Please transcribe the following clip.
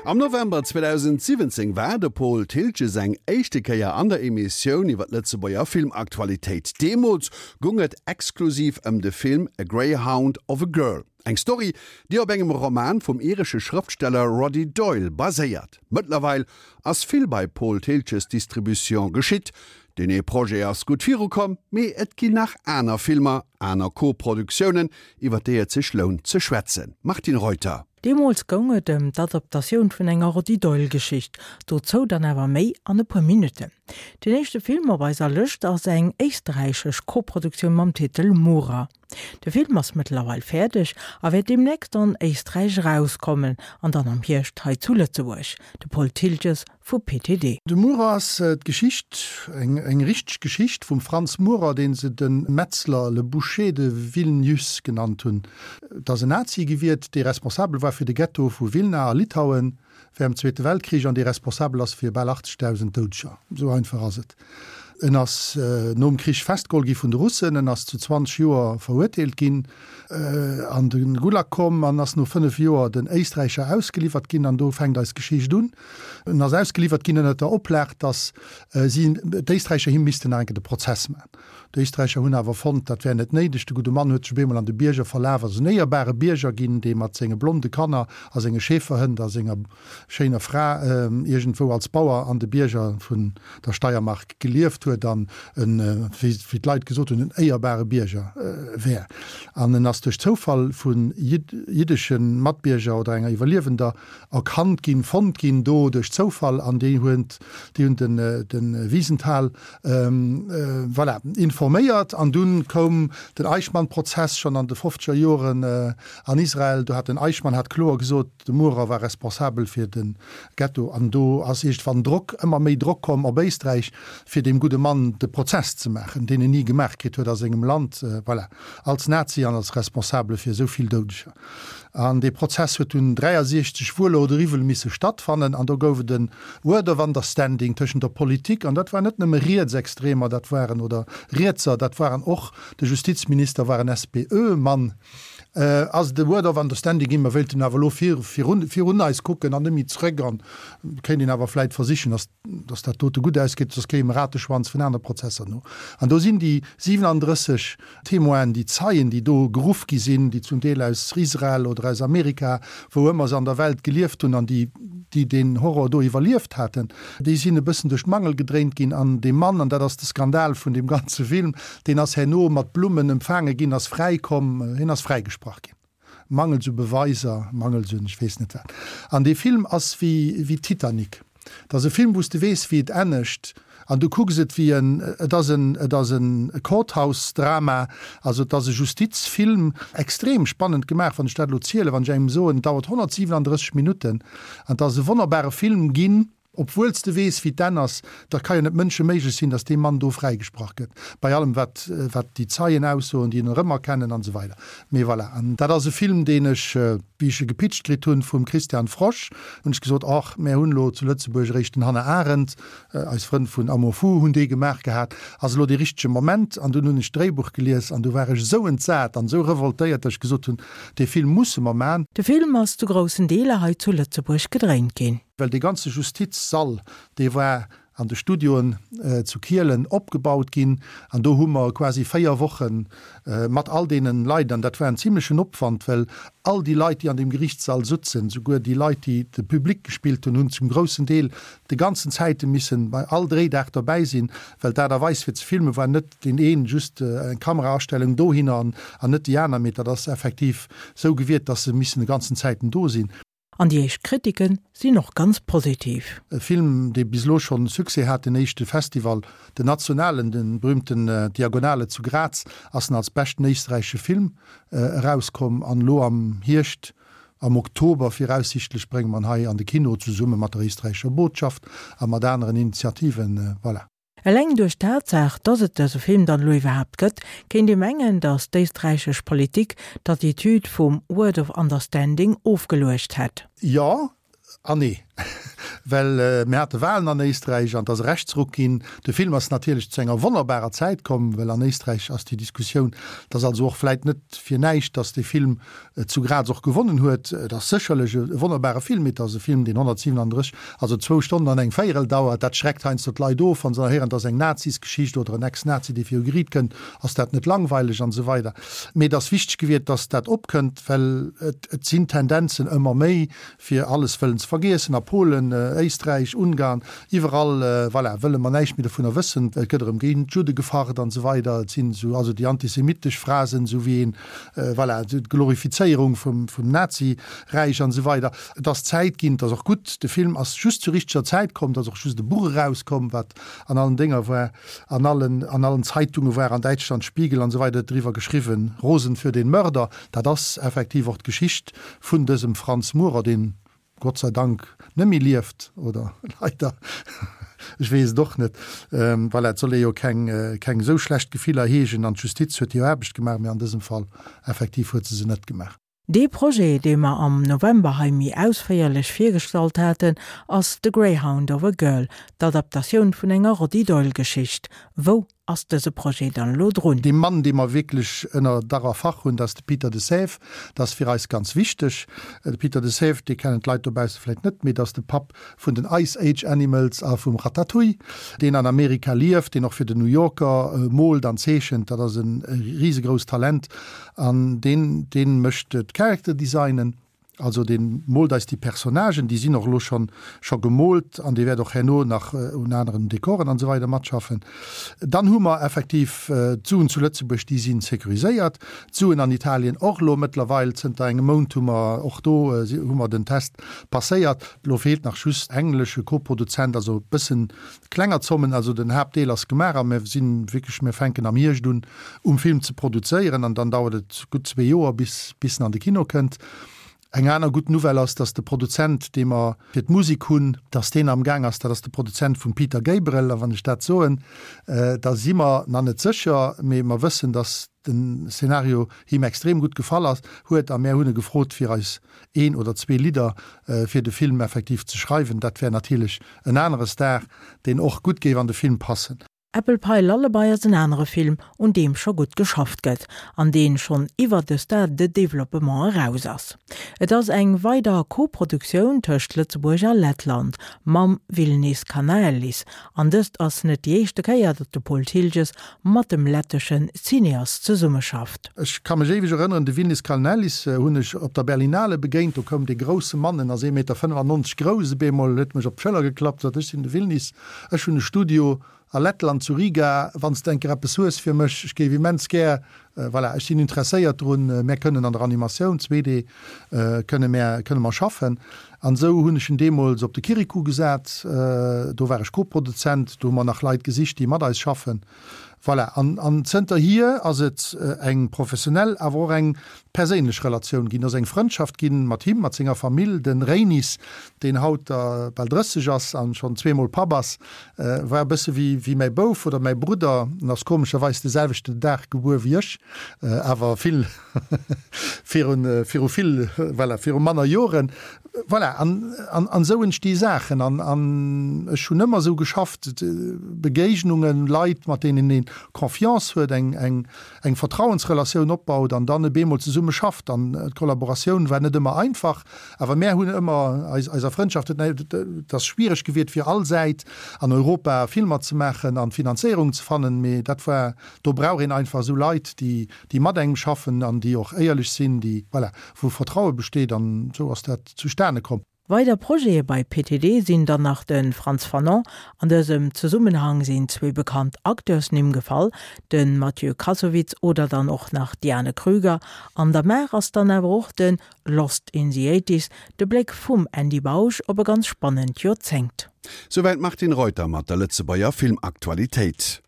Am November 2017 war de Paul Thiltges eng éischte Kéier an der Emissioun iwwer d'Lëtzebuerger Filmaktualitéit. Deemools gung et exklusiv ëm de Film A Greyhound of a Girl, eng Story, déi op engem Roman vum iresche Schrëftsteller Roddy Doyle baséiert. Mëttlerweil ass vill bei Paul Thiltges Distribution geschitt. Deen ee Projet ass gutt virukomm, mee et ginn nach aner Filmer, aner Co-Produktiounen, iwwer déi et sech lount ze schwätzen. Martine Reuter. Deemools goung et ëm d'Adaptatioun vun enger Roddy Doyle-Geschicht, dozou dann awer méi an e puer Minutten. Den éischte Film op eiser Lëscht ass eng éisträichesch Koproduktioun mam Titel Murer. De Film ass mëttlerweil fäerdeg a wäert deemnächst an Éisträich erauskommen an dann am Hierscht hei zu Lëtzebuerg. De Paul Thiltges vu PTD. De Murer ass d'Geschicht, eng richteg Geschicht vum Franz Murer, dee se de Metzler, le Boucher de Vilnius genannt hunn. Et ass en Nazi gewiert, dee responsabel war fir de Ghetto vu Wilna a Litauen während dem Zweete Weltkrich an dee responsabel ass fir bal 80.000 Doudeger. Esou einfach ass et. En ass nom Krich festgeholl gi vun de Russen, en ass zu 20 Joer verurteelt ginn, an de Gulag komm an ass no 5 Joer den Éisträicher ausgeliwwert ginn. An do fänkt eis Geschicht un. En ass ausgeliwwert ginn ënner der Oplag, datt si, d'Éisträicher, him missten nach eng Kéier de Prozess maachen. D'Éisträicher hunn awer fonnt, dat wär net néideg. De gudde Mann huet sech op eemol an de Bierger verlaf, ass en éierbare Bierger ginn, dee mat senge blonde Kanner a senge Schäferhënd a senger schéiner Fra iergendwou als Bauer an de Bierger vun der Steiermark gelieft huet an en, wéi d'Leit gesot hunn, en éierbare Bierger wär. An en ass duerch Zoufall vu jiddesche Matbierger oder enger Iwwerliewender erkannt ginn, fonnt ginn do duerch Zoufall an déi hunn de Wiesenthal Voilà, informéiert. An dunn koum den Eichmann-Prozess schonn an de fofzeger Joren an Israel. Do hat den Eichmann hat kloer gesot, de Murer war responsabel fir de Ghetto. An do ass iergendwann Drock, ëmmer méi Drock komm op Éisträich, fir deem gudde Mann de Prozess ze maachen, deen en ni gemaach kritt huet a sengem Land, voilà, als Nazi an als Responsabele fir esou vill Doudeger. An dee Prozess huet dunn 63 wuel oder iwwel misse stattfannen. An do gouf et en Word of Understanding tëschent der Politik, an dat waren net nëmme Rietsextremer, dat waren, oder Rietser, dat waren och, de Justizminister war en SPÖ-Mann, ass et e Word of Understanding ginn, mer wéilten awer elo virun, virun eis kucken an net méi zrëck an kéint een awer vläit versichen, dass, dass dat dote gutt ausgeet, soss kréie mer Rateschwanz vun anere Prozesser no. An do sinn déi 37 Témoinen, déi Zeien, déi do geruff gi sinn, déi zum Deel aus Israel oder aus Amerika, wou ëmmer se an der Welt gelieft hunn an déi, déi deen Horror do iwwerlieft haten, déi sinn e bëssen duerch d'Mangel gedréint ginn. An dee Mann, an dat ass de Skandal vun deem ganze Film, deen ass herno mat Blummen empfaange ginn, ass fräikomm, hien ass fräigesprach ginn. Mangels u Beweiser, mangels un ech weess net wat. An dee Film ass wéi wéi Titanic. Et ass e Film, wou s de weess, wéi et ennegt, an du kucks et wéi en, et ass en, et ass en Courthouse-Drama, also et ass e Justizfilm, extrem spannend gemaach, wann ech dat elo zielen, wann ech engem soen, et dauert 137 Minutten an et ass e wonnerbare Film ginn. Obwuel s de weess, wéi d'Enn ass, dat ka jo net mënscheméiglech sinn, datt dee Mann do fräigesprach gëtt, bei allem wat, wat déi Zeien aussoen, déi en erëmerkennen an esou weider. Mee voilà, an dat ass e Film, deen ech, wéi ech e gepitcht kritt hunn vum Christian Frosch, hunn ech gesot, Och, mär hunn elo zu Lëtzebuerg eréischt den Hannah Arendt, eis Frënn vun Amour fou hunn dee gemaach gehat, ass elo dee richtege Moment. An dunn hunn ech d'Dréibuch gelies an du war ech esou entsat an esou revoltéiert, datt ech gesot hunn, Dee Film musse mer man. De Film ass zu groussen Deeler hei zu Lëtzebuerg gedréint ginn. Well dee ganze Justizsall, dee war an de Studioen zu Kielen opgebaut ginn an do hu mer quasi 4 Woche mat all deenen Leit, an dat war en zimlechen Opwand, well all déi Leit, déi an deem Gerichtssall sutzen, souguer déi Leit, déi de Public gespillt hunn, hunn zum groussen Deel de ganzen Zäite missen bei all Dréidag derbäi sinn, well d'Aart a Weis fir ze filmen war net deen een just eng Kameraastellung dohinner an net déi aner, mee dat ass effektiv sou gewiert, dass se missen de ganzen Zäiten do sinn. An déi éischt Kritiken sinn och ganz positiv. E Film, dee bis elo schonn Succès hat, den éischte Festival, den nationalen, de berühmten Diagonale zu Graz, ass en als beschten éisträichesche Film erauskomm. An elo am Hierscht, am Oktober viraussichtlech, brénge mer en hei an de Kino, zesumme mat der éisträichescher Botschaft a mat aneren Initiativen. Voilà. Eleng duerch d'Tatsaach, dass et dëse Film dann elo iwwerhaapt gëtt, kéint ee mengen, dass d'éisträichesch Politik d'Attitude vum Word of Understanding ofgeluecht hätt. Jo an nee. Well mir hate Walen an Éisträich an et ass e Rechtsruck ginn. De Film ass natierlech zu enger wonnerbarer Zäit komm, well an Éisträich ass déi Diskussioun, et ass also och vläit net fir näischt, datt dee Film zu Graz och gewonnen huet. Et ass sécherlech e wonnerbare Film, mee et ass e Film, deen 137, also zwou Stonnen an eng Véierel dauert. Dat schreckt heiansdo d'Leit of, wa se da héieren, et ass eng Nazisgeschicht oder en Ex-Nazi, dee viru Geriit kënnt, ass dat net langweileg an esou weider. Mee et ass wichteg gewiert, datt dat opkënnt, well et sinn Tendenzen ëmmer méi, fir alles wëllen ze vergiessen, a Polen, Éisträich, Ungarn, iwwerall, voilà, wëlle mer näischt méi dovunner wëssen, et gëtt erëm géint d'Judde gefacht an esou weider, et sinn esou, also déi antisemitesch Phrasen, esou wéi een, voilà, d'Glorifizéierung vum, vum Nazi-Räich an esou weider. Et ass Zäit ginn, et ass och gutt, de Film ass just zur richteger Zäit komm, et ass och just e Buch erauskomm, wat an allen Dénger war, an allen, an allen Zeitunge war, an Däitschland, Spiegel an esou weider huet driwwer geschriwwen, Rosen für den Mörder, dat ass effektiv och d'Geschicht vun dësem Franz Murer, deen Gott sei Dank net méi lieft, oder leider, ech weess et och net. Voilà, et soll ee jo keng, keng esou schlecht Gefiller heegen an d'Justiz huet hir Aarbecht gemaach, mee an dësem Fall effektiv huet se se net gemaach. Dee Projet, dee mer am November hei méi ausféierlech virgestallt haten, ass The Greyhound of a Girl, d'Adaptatioun vun enger Roddy Doyle-Geschicht. Wou ass dëse Projet dann elo drun? Dee Mann, dee mer wierklech ënner Dach a Fach hunn, dat ass de Peter de Sève. Dat ass fir eis ganz wichteg. De Peter de Sève, dee kennen d'Leit dobausse vläicht net, mee dat ass de Papp vun den Ice Age Animals a vum Ratatouille, deen an Amerika lieft, deen och fir den New Yorker moolt an zeechent. Dat ass e risegrousst Talent an deen, dee mécht d'Character Designen. Also dee moolt eis déi Personnagen, déi sinn och elo schonn scho gemoolt an dee wäert och herno nach un aneren Dekoren an esou weider matschaffen. Dann hu mer effektiv d'Suen zu Lëtzebuerg, déi si sécuriséiert. D'Suen an Italien och elo mëttlerweil, zënter engem Mount hu mer och do hu mer den Test passéiert. Elo feelt nach just englesche Koproduzent, also e bëssen klenger Zommen. Also den Haaptdeel ass gemaach a mir sinn wierklech, mir fänken am Hierscht un um Film ze produzéieren an dann dauert et gutt zwee Joer bis bis en an de Kino kënnt. Eng aner gutt Nouvelle ass, datt de Produzent, dee mer fir d'Musek hunn, datt deen am Gaang ass, dat ass de Produzent vum Peter Gabriel, a wann ech dat soen, da si mer nach net sécher, mee mer wëssen, datt den Szenario him extrem gutt gefall ass, huet a mär hunn e gefrot fir eis een oder zwee Lidder fir de Film effektiv ze schreiwen. Dat wär natierlech en anere Star, deen och gutt géif an de Film passen. Apple Pie Lullaby ass en anere Film, un deem scho gutt geschafft gëtt, an deen schonn iwwer de Stade de développement eraus ass. Et ass eng weider Co-Produktioun tëscht Lëtzebuerg a Lettland, mam Vilnis Kanaelis, an dëst ass net déi éischte Kéier, datt de Paul Thiltges mat dem lettesche Cineast zesummeschafft. Ech ka mech éiweg erënneren, de Vilnis Kalnelis hunn ech op der Berlinale begéint, do koum dee grousse Mann, en ass ee Meter 95 grouss, op eemol huet mech op d'Schëller geklappt, sot, ech sinn de Vilnis, Ech hunn e Studio a Lettland, zu Riga, wann s de eng Kéier eppes hues fir mech, ech géif immens gär, voilà, ech sinn interesséiert drun, mär kënnen an der Animatioun, 2D, kënne mär, kënne mer schaffen. An esou hunn ech en deemools op de Kirikou gesat, do war ech Koproduzent, do hu mer nach Leit gesicht, déi mat eis schaffen. Voilà, an, an zënterhier ass et eng professionell, awer och eng perséinlech Relatioun ginn, ass eng Frëndschaft ginn mat him, mat senger Famill. De Reinis, deen haut der bal 30 ass an schonn zweemol Papp ass, war e bësse wéi, wéi mäi Bouf oder mäi Brudder. En ass komescherweis de selwechten Dag gebuer wéi ech, awer vill virun, viru vill, voilà, viru manner Joren. Voilà, an, an, an esou entsti Saachen. An, an ech hunn ëmmer esou geschafft, Begéignungen, Leit, mat deenen ee Confiance huet, eng, eng, eng Vertrauensrelatioun opbaut an dann e bemol zesumme schafft. An d'Kollaboratioun war net ëmmer einfach, awer mär hunn ëmmer eis, eiser Frëndschaft huet, et ass schwiereg gewiert fir all Säit an Europa Filmer ze maachen an Finanzéierungen ze fannen, mee dat war, do brauch een einfach esou Leit, déi, déi mat engem schaffen an déi och éierlech sinn, déi, voilà, wou Vertraue besteet an esou ass dat zustane komm. Weider Projete bei PTD sinn dann nach de Frantz Fanon, an dësem Zesummenhang sinn zwee bekannt Acteursnimm gefall, de Mathieu Kassovitz oder dann och nach d'Diane Krüger. An der Maach ass dann awer och de Lost in the Eighties, de Bléck vum Andy Bausch op e ganz spannend Joerzéngt. Souwäit d'Martine Reuter mat der Lëtzebuerger Filmaktualitéit.